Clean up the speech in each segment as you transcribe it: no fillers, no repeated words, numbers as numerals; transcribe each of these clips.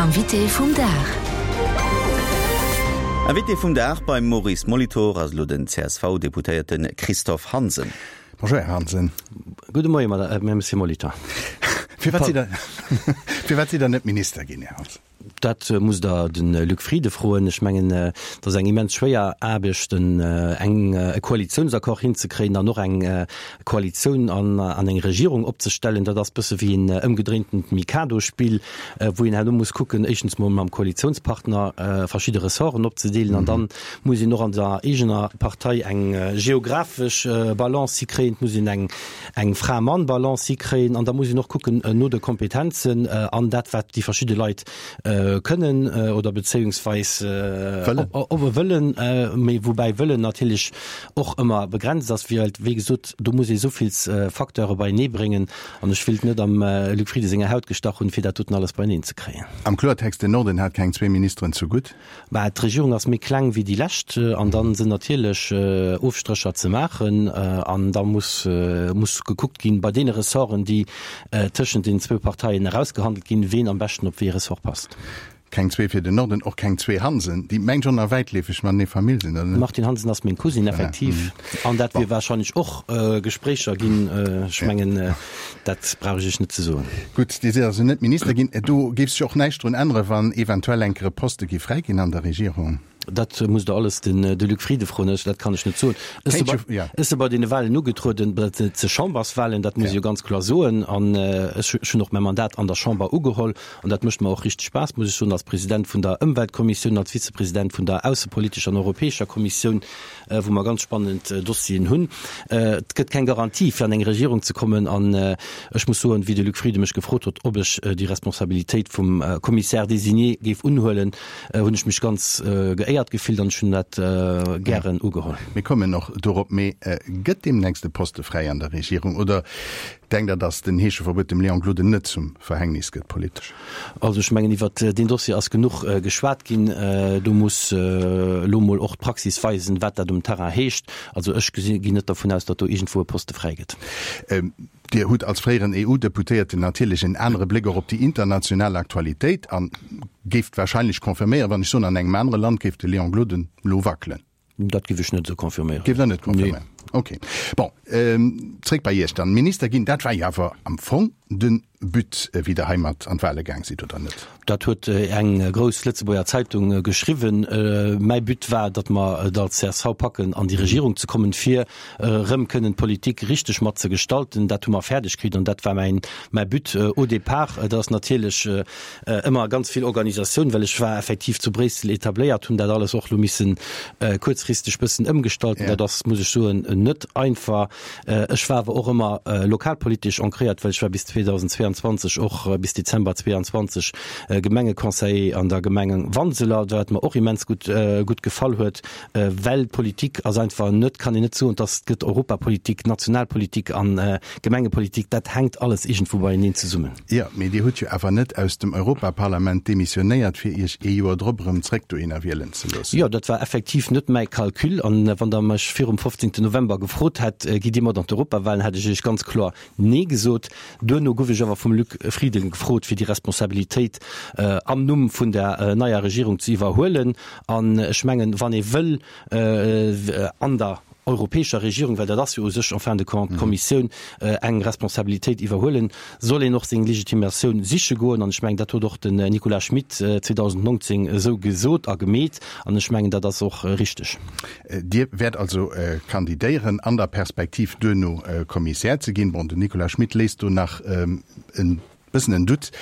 Invité vum Dag. Invité vum Dag beim Maurice Molitor ass elo den CSV-Deputéierte Christophe Hansen. Bonjour Här Hansen. Gudde Moie Monsieur Molitor. Firwat sidd Der, firwat sidd Der net Minister ginn, Här Hansen? Dat musst Der de Luc Frieden froen. Ech mengen, et ass eng immens schwéier Aarbecht, eng e Koalitiounsaccord hinzekréien an och eng Koalitioun an an eng Regierung opzestellen. Dat ass bësse wéi en ëmgedréintent Mikado-Spill, wou een herno muss kucken, éischtens mol mam Koalitiounspartner verschidde Ressorten opzedeelen an dann muss een och an der eegener Partei eng geographesch Balance hikréien, et muss een eng eng Fra-Mann-Balance hikréien an da muss een och kucken no de Kompetenzen an dat wat déi verschidde Leit kënnen oder bezéiungsweis wëllen, mee woubäi wëllen natierlech och ëmmer begrenzt ass, well wéi gesot do muss ee souvill Facteure beienee bréngen an ech wéilt net am Luc Frieden senger Haut gestach hunn, fir dat doten alles beieneen ze kréien. Am Kloertext, den Norden hat keng zwee Ministeren zu gutt. Mä d'Regierung ass méi kleng wéi déi lescht an da sinn natierlech Ofstrécher ze maachen an da muss muss gekuckt ginn, bei deene Ressorten, déi tëschent den zwou Parteien erausgehandelt ginn, ween am beschten op wéi ee Ressort passt. Keng zwee fir den Norden, och keng zwee Hansen, déi mengt schonn nach wäitleefeg matenee Famill sinn, oder net? De Martin Hansen ass meng Cousine, effektiv. An dat wier warscheinlech och Gespréicher ginn. Ech mengen, Dat brauch ech Iech net ze soen. Gutt, Dir sidd also net Minister ginn. Do géif sech och näischt drun änneren, wann eventuell enker e Poste géif fräi ginn an der Regierung? Dat musst Der alles den de Luc Frieden froen. Ech, dat kann ech net soen. Ech si bei, ech si bei deene Wahlen ugetrueden, dat si Chamberswahlen, dat muss ech jo ganz kloer soen. An ech hunn och mäi Mandat an der Chamber ugeholl. An dat mécht mer och richteg Spaass, muss ech soen, als President vun der Ëmweltkommissioun, als Vizepresident vun der aussepolitescher an europäescher Kommissioun. wou mer ganz spannend Dossieren hunn. Et gëtt keng Garantie, fir an eng Regierung ze kommen. An ech muss soen, wéi de Luc Frieden mech gefrot huet, ob ech déi Responsabilitéit vum Commissaire désigné géif unhuelen, hunn ech mech ganz geéiert gefillt an ech hunn dat gären ugeholl. Mir kommen och dorop. Mee gëtt deemnächst e Poste fräi an der Regierung oder denkt Der, datt den Heescheverbuet dem Léon Gloden net zum Verhängnis gëtt politesch? Also ech mengen, iwwert deen Dossier ass genuch geschwat ginn. Do muss elo mol och d'Praxis weisen, wat dat um Terrain heescht. Also ech ginn net dervun aus, datt do iergendwou e Poste fräi gëtt. Dir hutt als fréieren EU-Deputéierten natierlech en anere Bléck och op déi international Aktualitéit a géift wahrscheinlech confirméieren, wann ech soen, an engem anere Land géif de Léon Gloden elo wackelen. Dat géif ech net esou confirméieren. Géift Der net confirméieren? Nee. Okay. Bon, zréck bei Iech dann. Minister ginn, dat war jo awer am Fong de But, wéi Der heimat an d'Wahle gaang sidd, oder net? Dat huet eng grouss Lëtzebuerger Zeitung geschriwwen. Mäi But war, datt mer et als csv packen, an déi Regierung ze kommen, fir erëm kënnen d'Politik richteg mat ze gestalten. Dat hu mer fäerdeg kritt an dat war mäin, mäi But au départ. Et ass natierlech Ëmmer ganz vill Organisatioun, well ech war effektiv zu Bréissel etabléiert, hunn dat alles och lo missen kuerzfristeg bëssen ëmgestalten. Dat ass, muss ech soen, net einfach. Ech war awer och ëmmer lokalpolitesch ancréiert, well ech war bis 2022, och bis Dezember 22 Gemengeconseiller an der Gemeng Wanseler, wat mer och immens gutt gutt gefall huet, well Politik ass einfach net, kann een net soen, dass et gëtt Europapolitik, Nationalpolitik an Gemengepolitik, dat hänkt alles iergendwou beieneen zesummen. Jo, mee Dir hutt jo awer net aus dem Europaparlament demissionéiert, fir Iech ee Joer drop erëm zréck dohinner wielen ze loossen. Jo, dat war effektiv net mäi Calcul. An wann Der mech virum 15. November gefrot hätt, Gitt Dir mat an d'Europawahlen, hätt ech Iech ganz kloer Nee gesot. Duerno gouf ech awer vum Luc Frieden gefrot, fir déi Responsabilitéit am Numm vun der neier Regierung ze iwwerhuelen. An ech mengen, wann ee wëll an der europäescher Regierung, well dat ass jo u sech en fin de compte d'Kommissioun, eng Responsabilitéit iwwerhuelen, soll een och seng Legitimatioun siche goen. An ech mengen, dat huet och den Nicolas Schmit 2019 esou gesot a gemeet. An ech mengen, dat ass och richteg. Dir wäert also kandidéieren an der Perspektiv, duerno Kommissär ze ginn. Bon, den Nicolas Schmit léisst do nach e Bëssen en Doute.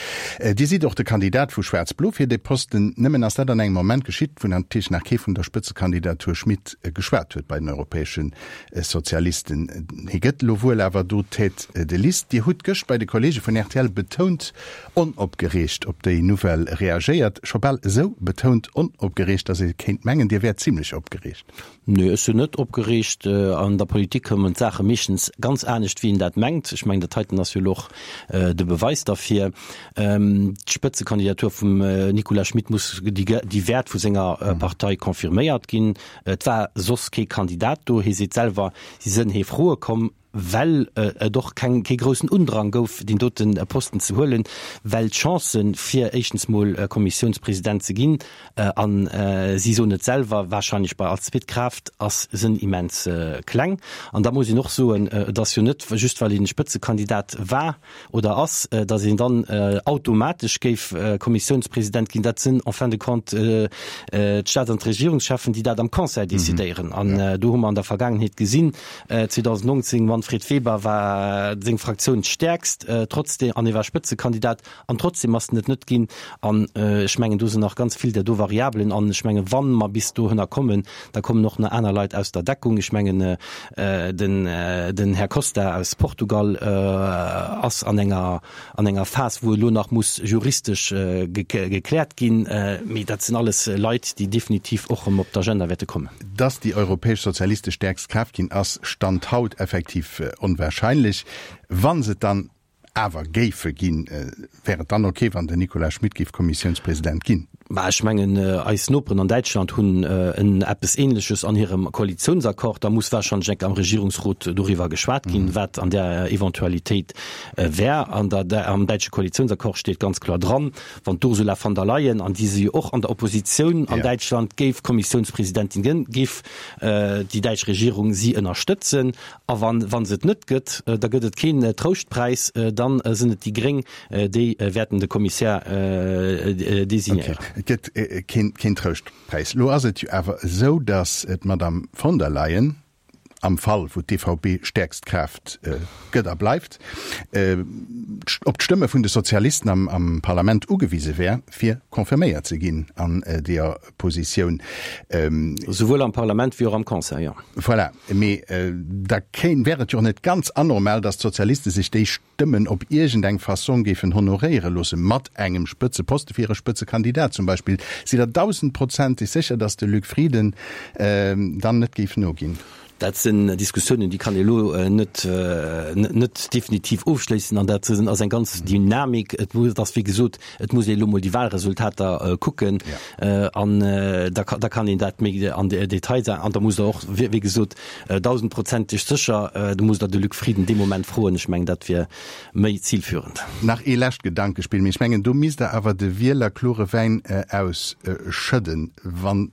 Dir sidd och de Kandidat vu Schwaarz-Blo fir dee Posten. Nëmmen ass dat an engem Moment geschitt, wou natierlech nach kee vun der Spëtzekandidatur Schmit geschwat huet bei den europäesche Sozialisten. Hie gëtt elo wuel awer do Tête de liste. Dir hutt gëscht bei de Kollege vun rtl betount onopgereegt op déi Nouvelle reagéiert. Scho bal esou betount onopgereegt, datt ee kéint mengen, Dir wäert zimlech opgereegt. Nee, ech sinn net opgereegt. An der Politik kommen d'Saache meeschtens ganz anescht, wéi een dat mengt. Ech mengen, dat heiten ass jo elo och de Beweis derfir. D'Spëtzekandidatur vum Nicolas Schmit muss, déi wäert vu senger Partei confirméiert ginn. Et war soss kee Kandidat do. Hie seet selwer, si sënn hee Froe komm. well et och keng, kee groussen Undrang gouf, deen dote Posten ze huelen, well d'Chancen, fir éischtens mol Kommissiounspresident ze ginn, an si soen et selwer, wahrscheinlech bei als zweet Kraaft, ass, sënn immens kleng. An da muss een och soen, et ass jo net just, well een Spëtzekandidat war, oder ass, datt een dann automatesch géif Kommissiounspresident ginn. Dat sinn en fin de compte d'Staats an d'Regierungscheffen, déi dat am Conseil decidéieren. An do hu mer an der Vergaangenheet gesinn, 2019, Manfred Weber war seng Fraktioun d'stäerkst, trotzdem, an e war Spëtzekandidat, an trotzdem ass en et net ginn. An ech mengen, do sinn nach ganz vill där do Variabelen. An ech mengen, wa mer bis dohënner kommen, da kommen och nach aner Leit aus der Deckung. Ech mengen, den, den Här Costa aus Portugal ass an enger, an enger Phas, wou elo nach muss juristesch gekläert ginn. Mee dat sinn alles Leit, déi definitiv och erëm op d'Agenda wäerte kommen. Dass déi europäesch Sozialiste stäerkst Kraaft ginn, ass Stand haut effektiv onwahrscheinlech. Wa se et dann awer géife ginn, wär et dann ok, wann den Nicolas Schmit géif Kommissiounspresident ginn? Mä ech mengen, eis Noperen an Däitschland hunn en eppes Ähnleches an hirem Koalitiounsaccord. Da muss wahrscheinlech enk am Regierungsrot doriwwer geschwat ginn, wat an där Eventualitéit wär. An der, am däitsche Koalitiounsaccord steet ganz kloer dran, wann d'Ursula von der Leyen, an déi si jo och an der Oppositioun an Däitschland, géif Kommissiounspresidentin ginn, géif déi däitsch Regierung si ënnerstëtzen. A wann, wa se et net gëtt, da gëtt et keen Trouschtpräis, dann sinn et déi Gréng, déi wäerten de Kommissär designéieren. Okay, et gëtt keen, keen Trouschtpräis. Elo ass et jo awer esou, datt d'Madame von der Leyen, am Fall wou d'EVP stäerkst Kraaft gëtt a bleift, op d'Stëmme vun de Sozialisten am, am Parlament ugewise wär, fir confirméiert ze ginn an deeër Positioun. Souwuel am Parlament wéi och am Conseil, jo. Voilà. Mee da kéint, wär et jo och net ganz anormal, datt d'Sozialiste sech déi Stëmmen op iergendeng Fassong géifen honoréiere loosse mat engem Spëtzeposte fir hire Spëtzekandidat zum Beispill. Sidd Der dausendprozenteg sécher, datt de Luc Frieden dann net géif noginn? Dat sinn Diskussiounen, déi kann ee elo net, net definitiv ofschléissen an dat ass eng ganz Dynamik. Et muss, et ass wéi gesot, et muss ee elo mol déi Wahlresultater kucken an da da kann een dat méi an de Detail sagen. An da musst Der och, wéi gesot, dausendprozenteg sécher, do musst Der de Luc Frieden dee Moment froen. Ech mengen, dat wier méi zilführend. Nach ee lescht Gedankespill, mee ech mengen, do misst Der awer de Wieler klore Wäin ausschëdden, wann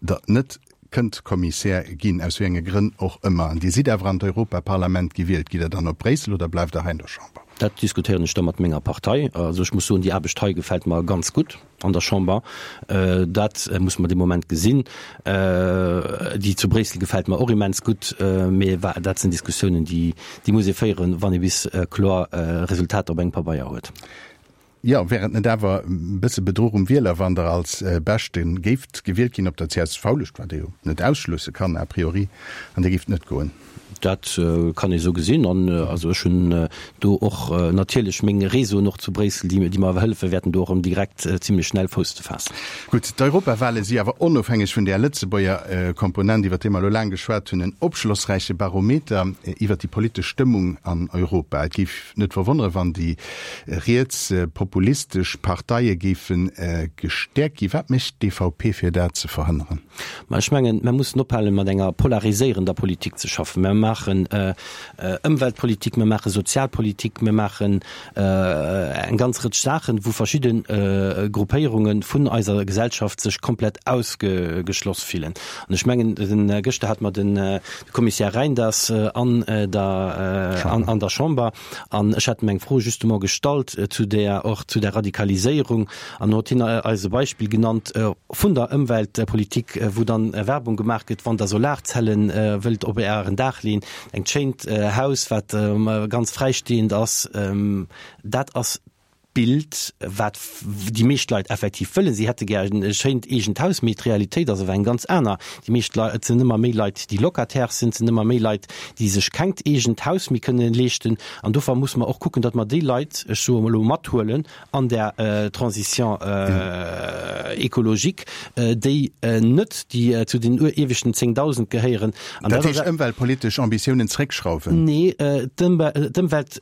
Der net kënnt Kommissär ginn, aus wéi enge Grënn och ëmmer, an Dir sidd awer an d'Europaparlament gewielt, gitt Der dann op Bréissel oder bleift Der hei an der Chamber? Dat diskutéieren ech da mat menger Partei. Also ech muss soen, déi Aarbecht hei gefält mer ganz gutt an der Chamber. Dat muss mer dee Moment gesinn. Déi zu Bréissel gefält mer och immens gutt, mee dat sinn Diskussiounen, déi muss ee féieren, wann ee bis kloer Resultater op engem Pabeier huet. Jo, wär et net awer e bësse Bedruch um Wieler, wann Der als Beschte géift gewielt ginn op der CSV-Lëscht, wat ee jo net ausschlësse kann a priori, an Dir géift net goen? Dat kann ee sou gesinn. An also ech hunn do och natierlech meng Réseauen och zu Bréissel, déi mer hëllefe wäerten, do och erëm direkt zimlech schnell Fouss ze faassen. Gutt, d'Europawale si awer onofhängeg vun där Lëtzebuerger Komponent, iwwer déi mer elo laang geschwat hunn, en opschlossräiche Barometer iwwer déi politesch Stëmmung an Europa. Et géif net verwonnere wann déi rietspopulistesch Parteie géife gestäerkt ginn. Wat mécht d'EVP fir dat ze verhënneren? Ma ech mengen, mer mussen ophalen, mat enger polariséierender Politik ze schaffen. Mer maachen Ëmweltpolitik, mer maache Sozialpolitik, mer maachen eng ganz Rëtsch Saachen, wou verschidde Gruppéierunge vun eiser Gesellschaft sech komplett ausgeschloss fillen. An ech mengen, gëschter hate mer de Kommissär Reynders an der an der Chamber an ech hat em eng Fro justement gestallt zu där och zu der Radikaliséierung an huet hien eis e Beispill genannt vun der Ëmweltpolitik, wou dann Werbung gemaach gëtt, wann Der Solarzellen wëllt op Ären Daach leeën, engt schéint Haus wat ganz fräistehend ass, dat ass Bild, wat déi meescht Leit effektiv wëllen. Si hätte gär e schéint eegent Haus, mee d'Realitéit ass awer eng ganz aner. Déi meescht Leit, et sinn ëmmer méi Leit, déi Locataire sinn, et sinn ëmmer méi Leit, déi sech kengt eegent Haus méi kënnen leeschten. An dofir musse mer och kucken, datt mer déi Leit, ech soe elo, mathuelen an där Transition écologique, déi net déi zu den ieweschten 10.000 gehéieren. An dat heescht ëmweltpolitesch Ambitiounen zréckschrauwen? Nee, d'Ëmwelt.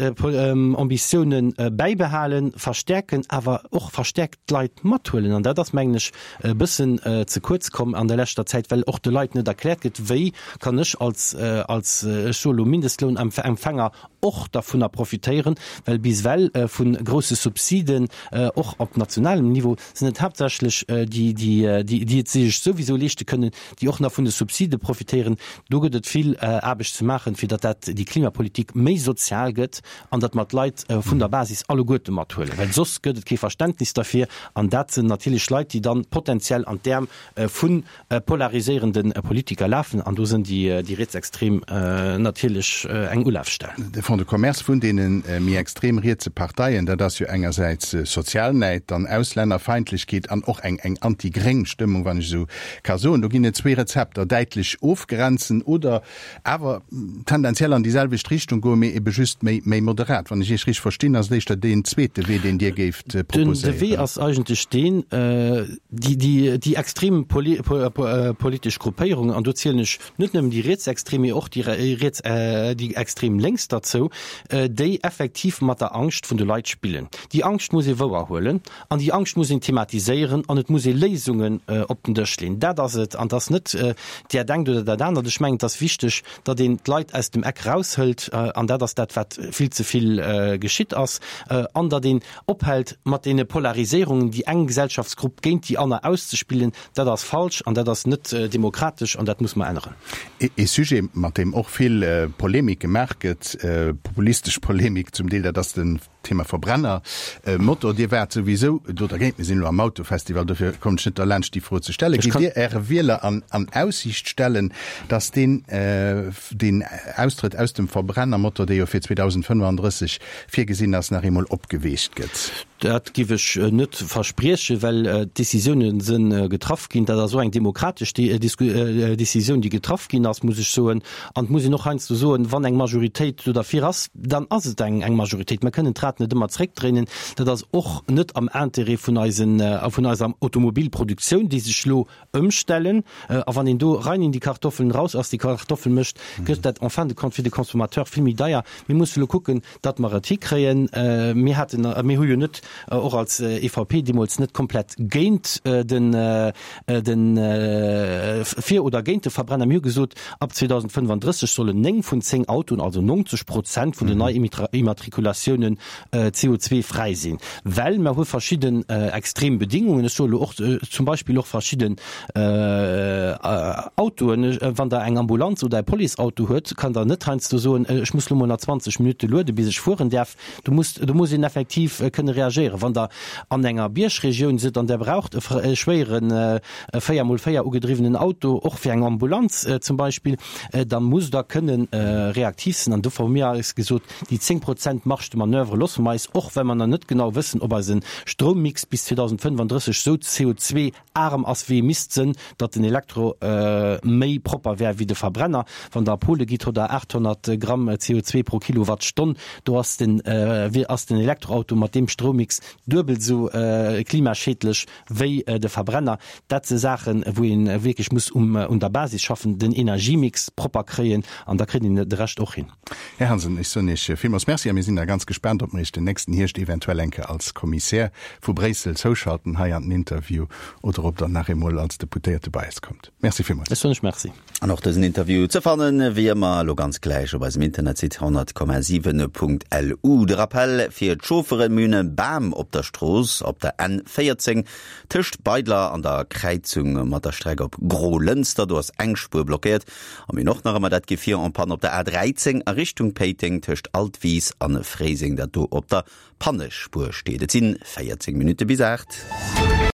Ambitiounen bäibehalen. verstäerken, awer och verstäerkt d'Leit mathuelen. An dat ass, mengen ech, e bëssen ze kuerz komm an der leschter Zäit, well och de Leit net erkläert gëtt, wéi kann ech als, als, ech soe lo Mindestlounempfänger och dervunner profitéieren, well bis ewell vu grousse Subsiden, och op nationalem Niveau, sinn et haaptsächlech déi, déi, déi et sech souwisou leeschte kënnen, déi och nach vun de Subside profitéieren. Do gëtt et vill Aarbecht ze maachen, fir datt dat, déi Klimapolitik méi sozial gëtt an datt mer d'Leit vun der Basis alleguerte mathuelen, well soss gëtt et kee Verständnis derfir. An dat sinn natierlech Leit, déi dann potenziell an d'Äerm vu polariséierende Politiker lafen. An do sinn déi Rietsextrem natierlech eng Ulafstell. De Fonds de commerce vun deene méi extrem rietse Parteien, dat ass jo engersäits Sozialnäid, dann Auslännerfeindlechkeet an och eng anti-gréng Stëmmung, wann ech esou ka soen. Do ginn et zwee Rezepter, däitlech ofgrenzen oder awer tendenziell an déi selwecht Richtung goen, mee ebe just méi méi moderat. Wann ech Iech richteg verstinn, ass et éischter deen zweete Wee, deen Dir géift proposéieren. De Wee ass eigentlech deen, déi déi déi extrem politesch Gruppéierungen, an do zielen ech net nëmmen déi rietsextrem, mee och déi riets déi extrem lénks derzou, déi effektiv mat der Angscht vun de Leit spillen. Déi Angscht muss ee wouerhuelen An déi Angscht muss een thematiséieren an et muss ee Léisungen op den Dësch leeën. Dat ass et. An et ass net där engt oder dat anert. Ech mengen, et ass wichteg, datt een d'Leit aus dem Eck eraushëlt. An dat ass dat, wat vill ze vill geschitt ass. An datt een ophält mat deene Polariséierungen, déi eng Gesellschaftsgrupp géint déi aner auszespillen. Dat ass falsch an dat ass net demokratesch an dat muss mer änneren. Ee Sujet, mat deem och vill Polemik gemaach gëtt, populistesch Polemik zum Deel, dat ass de Thema Verbrenner Motor, Dir waart souwisou do dergéint. Mir sinn elo am Autofestival, dofir kommen ech net derlaanscht déi Fro ze stellen. Gitt Dir Äre Wieler an an Aussiicht stellen, datt deen deen Austrëtt aus dem Verbrennermotor, dee jo fir 2035 virgesinn ass, nach eemol opgeweecht gëtt? Dat giff ech net verspriechen, well d'Décisioune se getraff ginn. Dat ass och eng demokratesch Décisioun, déi getraff ginn ass, muss ech soen. An et muss een och heiansdo soen, wann eng Majoritéit do derfir ass, dann ass et eng Majoritéit. Mer kënnen d'Rad net ëmmer zréckdréinen. Dat ass och net am Intérêt vun eisen, vun eiser Automobilproduktioun, déi sech elo ëmstellen. A wann een do rein in die Kartoffeln, raus aus die Kartoffeln mécht, gëtt dat en fin de compte fir de Consommateur vill méi deier. Mir musse elo kucken, datt mer et hikréien. Mir haten, mir hu jo net, och als EVP deemools net komplett géint den, den, fir oder géint de Verbrenner. Mir hu gesot, ab 2035 sollen 9 vun 10 Autoen, also 90 Prozent vun den Neiimmatrikulatiounen CO2-fräi sinn, well mer hu verschidden extrem Bedingungen. Ech soe lo och zum Beispill och verschidden Autoen, wann Der eng Ambulanz oder e Policeauto huet, kann Der net heiansdo soen, ech muss lo mol nach 20 Minutte luede bis ech fueren däerf. Do muss, do muss een effektiv kënne reagéieren. Wann Der an enger Biergregioun sidd an Der braucht e schwéieren 4 mol 4 ugedriwwenen Auto, och fir eng Ambulanz zum Beispill, da musst Der kënne reaktiv sinn. An dofir hu mir eis gesot, Déi 10 Prozent Marge de manoeuvre loosse mer eis, och well mer nach net genau wëssen, ob eise Stroummix bis 2035 esou CO2 arm ass wéi e misst sënn, datt den Elektro méi propper wär wéi de Verbrenner. Wann Der a Pole gitt, hutt Der 800 Gramm CO2 pro Kilowattstonn. Do ass den ass den Elektroauto mat deem Stroummix duebel esou klimaschädlech wéi de Verbrenner. Dat si Saachen, wou ee wierklech muss un der Basis schaffen, den Energiemix propper kréien an da kritt een de Rescht och hin. Här Hansen, ech soen Iech villmools Merci a mir sinn da ganz gespaant, ob mer Iech den nächsten Hierscht eventuell eng Kéier als Kommissär vu Bréissel zouschalten hei an den Interview oder ob Der nach eemol als Deputéierte bei eis kommt. Merci villmools. Ech soen Iech Merci. An och dësen Interview ze fannen, wéi ëmmer, elo ganz gläich op eisem Internetsite 100,7.lu. De Rappell fir d'Chaufferen, Mir hunn e Bam op der Strooss op der N 14 tëscht Beidler an der Kräizung mat der Streck op Grolënster. Do ass eng Spuer blockéiert. A mir hunn och nach ëmmer dat Gefier en panne op der A13 a Richtung Péiteng tëscht Altwis a Fréiseng, dat do op der Pannespuer steet. Et sinn 14 Minutte bis 8.